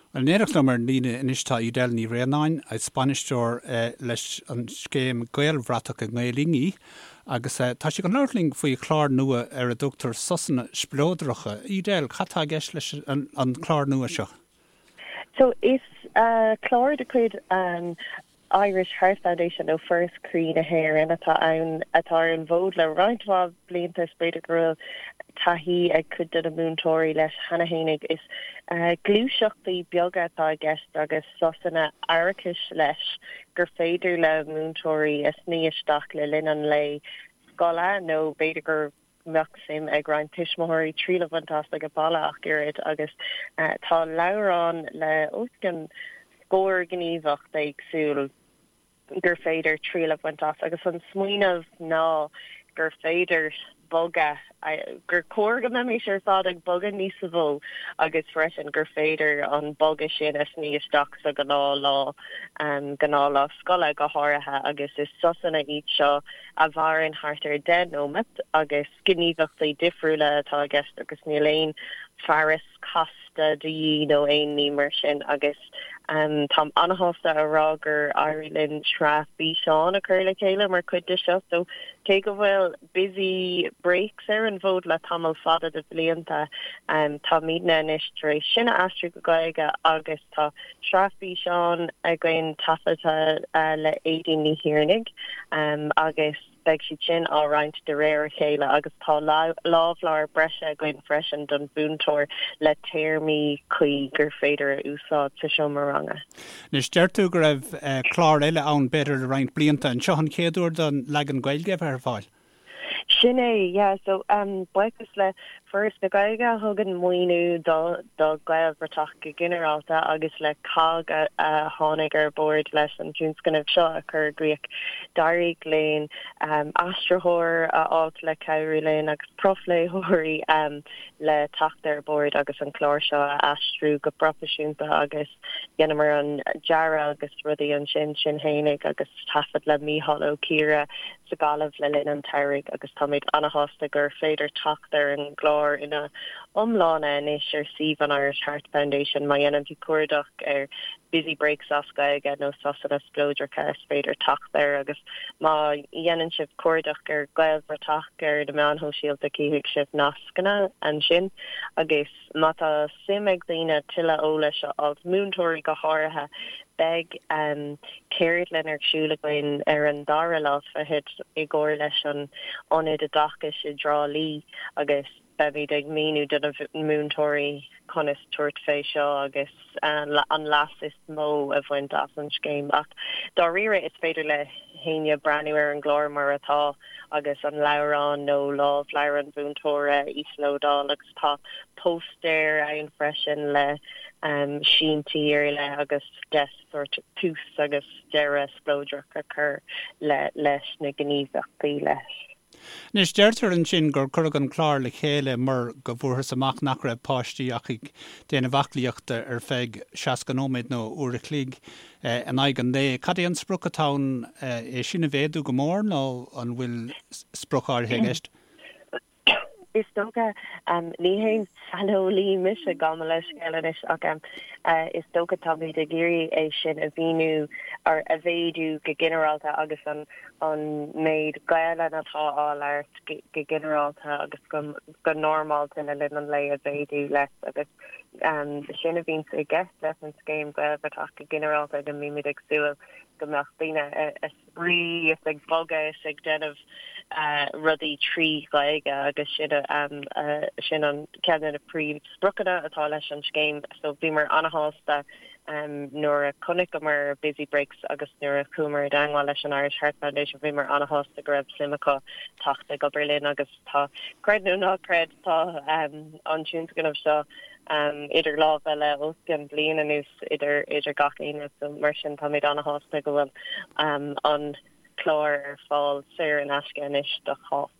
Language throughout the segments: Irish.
Bhuel, in éineacht liom ar an líne anois tá Edel Ní Bhraonáin, is bainisteoir leis an scéim Gaelbhratach i nGael-Linn í agus tá sí chun labhairt linn faoi chlár nua ar a dtugtar Sosanna Spleodracha. Edel, cad tá i gceist leis an chlár nua seo? So, is clár de chuid an Irish Heart Foundation nó Foras Croí na hÉireann atá ann, atá ar an bhfód le roinnt mhaith blianta. Is b'fhéidir go bhfuil taithí ag cuid de na múinteoirí leis cheana fhéinig. Is gluaiseachtaí beaga atá i gceist agus sosanna aireachais leis gur féidir le múinteoirí a shnoí isteach le linn an lae scoile nó b'fhéidir go mbeadh suim ag roinnt tuismitheoirí triail a bhaint as ag baile ach oiread agus tá leabhrán le os cionn scór gníomhaíocht éagsúil gur féidir triail a bhaint as agus an smaoineamh ná gur féidir bogadh, gur chóir go mbeimis ar fad ag bogadh níos mó agus freisin gur féidir an bogadh sin a shnoí isteach sa ghnáthlá, gnáthlá scoile go háirithe agus is sosanna iad seo a mhaireann thart ar 10 nóimeat agus gníomhaíochtaí difriúla atá i gceist agus níl aon fearas casta de dhíth nó aon ní mar sin agus táim an-shásta a rá gur éirigh linn sraith físeán a chur le chéile mar chuid de seo so cé go bhfuil Busy Breaks ar an bhfód le tamall fada de bhlianta táimidne anois tar éis sin a aistriú go Gaeilge agus tá Sraith físeán againn taifeadta le Aedín Ní Thiarnaigh agus beidh siad sin á roinnt de réir a chéile agus tá lámhleabhar breise againn freisin don mhúinteoir le téarmaí cuí gur féidir a úsáid sa seomra ranga. Anois, deir tú go raibh clár eile ann b'fhéidir le roinnt blianta. An seo an chéad uair don leagan Gaeilge a bheith ar fáil? Sin é, yeah. So, buíochas le Foras na Gaeilge a thugann maoiniú do do Ghaelbhratach go ginearálta agus le COGG a a tháinig ar bord leis an tionscnamh seo a chur i gcrích. D'éirigh linn aistritheoir a fháilt le cabhrú linn agus profléitheoirí le teacht ar bord agus an clár seo a aistriú go proifisiúnta agus dheineamar an dearadh agus rudaí ansin sinn fhéinig agus taifead le Mícheál Ó Ciardha sa Ghaillimh le linn an tsamhraidh agus táimid an-shásta gur féidir teacht ar an gclár ina iomláine anois ar suíomh an Irish Heart Foundation. Má dhéanann tú cuardach ar 'Busy Breaks as Gaeilge' nó 'Sosanna Spleodracha' is féidir teacht air agus má dhéanann sibh cuardach ar 'Gaelbhratach' ar na meáin shóisialta cífidh sibh nascanna ansin agus Má tá suim ag daoine tuilleadh eolais a fháilt, múinteoirí go háirithe, beidh ceardlann ar siúl againn ar an dara lá fichead i gcomhar leis an Ionad Oideachais i dTrá Lí agus beimid ag míniú do na múinteoirí conas tabhairt fé seo agus an leas is mó a bhaint as an scéim. Ach dáiríre is féidir le héinne breathnú ar an gclár mar atá agus an leabhrán nó lámhleabhar an mhúinteora a íoslódáil agus tá póstaer ann freisin le síntí ar leith agus deis sórt tús agus deireadh spleodrach a chur leis na gníomhaíochtaí leis. Anois, deirtear ansin gur cuireadh an clár le chéile mar go bhfuarthas amach nach raibh páistí ach ag déanamh aclaíochta ar feadh 60 nóiméad nó uair a chloig in aghaidh an lae. Cad é an sprioc atá ann? É sin a mhéadú go mór nó an bhfuil sprioc áirithe i gceist? Is dócha, ní haon saineolaí mise, gabh mo leithscéal anois, ach is dócha táimid ag iarraidh é sin a mhíniú, or a mhéadú go ginearálta agus an an méid Gaelainne atá á labhairt go ginearálta agus go normálta le linn an lae a mhéadú leis agus sin a bhíonns i gceist leis an scéim Gaelbhratach go ginearálta go mbímid ag súil go mbeadh daoine ag spraoi is ag bogadh is ag déanamh rudaí trí Ghaeilge agus sin sin an ceann de na príomhspriocanna atá leis an scéim so bhíomar ana-shásta nuair a chonaiceamar Busy Breaks agus nuair a chuamar i dteangmháil leis an Irish Heart Foundation bhíomar ana-shásta go raibh suim acu teacht ag obair linn agus tá, creid nó ná creid, tá an tionscnamh seo idir lámha le os cionn bliain anuas idir idir gach éinne so mar sin táimid ana-shásta go bhfuil an clár ar fáil saor in aisce anois do chách.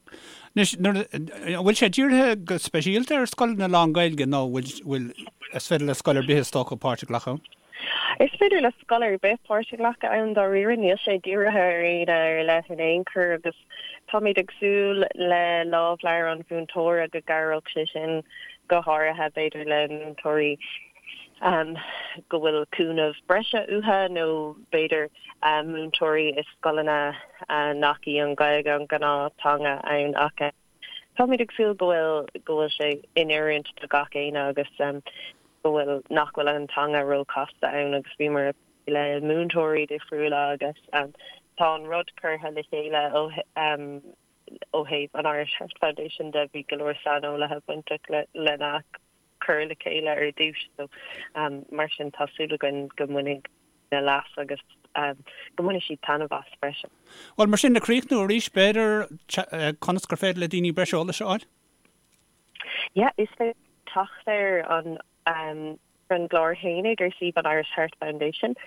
Anois, nuair, an bhfuil sé dírithe go speisialta ar scoileanna lán-Ghaeilge nó bhfuil, bhfuil, is féidir le scoil ar bith is dócha páirt a ghlacadh ann? Is féidir le scoil ar bith páirt a ghlacadh ann dáiríre, níl sé dírithe ar éinne ar leith in aon chor agus táimid ag súil le lámhleabhar an mhúinteora go gcabhródh sé sin go háirithe b'fhéidir le múinteoirí. Go bhfuil cúnamh breise uathu nó b'fhéidir múinteoirí i scoileanna nach í an Ghaeilge an gnáth-teanga ann ach táimid ag súil go bhfuil go bhfuil sé in oiriúint do gach éinne agus go bhfuil nach bhfuil an teanga ró-chasta ann agus bhíomar ag plé le múinteoirí difriúla agus tá an rud curtha le chéile ó ó thaobh an Irish Heart Foundation de bhí go leor saineolaithe bainteach lena cur le chéile ar dtús so mar sin tá súil againn go mbainfidh na leas agus go mbainfidh siad taitneamh as freisin. Bhuel, mar sin, le críochnú arís, b'fhéidir, conas gur féidir le daoine breis eolais a fháil? Yeah, is féidir teacht ar an ar an gclár fhéinig ar suíomh an Irish Heart Foundation,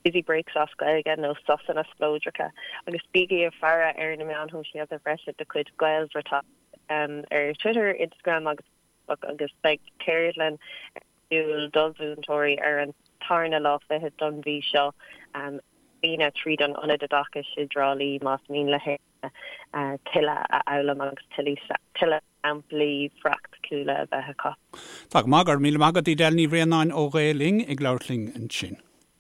Busy Breaks as Gaeilge nó Sosanna Spleodracha agus bígí ag faire ar na meáin shóisialta freisin de chuid Gaelbhratach ar Twitter, Instagram agus agus beidh ceardlann ar siúl do mhúinteoirí ar an tarna lá fichead don mhí seo ar líne tríd an Ionad Oideachais i dTrá Lí más mian le héinne tuilleadh a fhoghlaim agus tuilleadh samplaí praiticiúla a bheith acu. Tá go maith, go raibh míle maith agat Edel Ní Bhraonáin ó Ghael Linn ag labhairt linn ansin.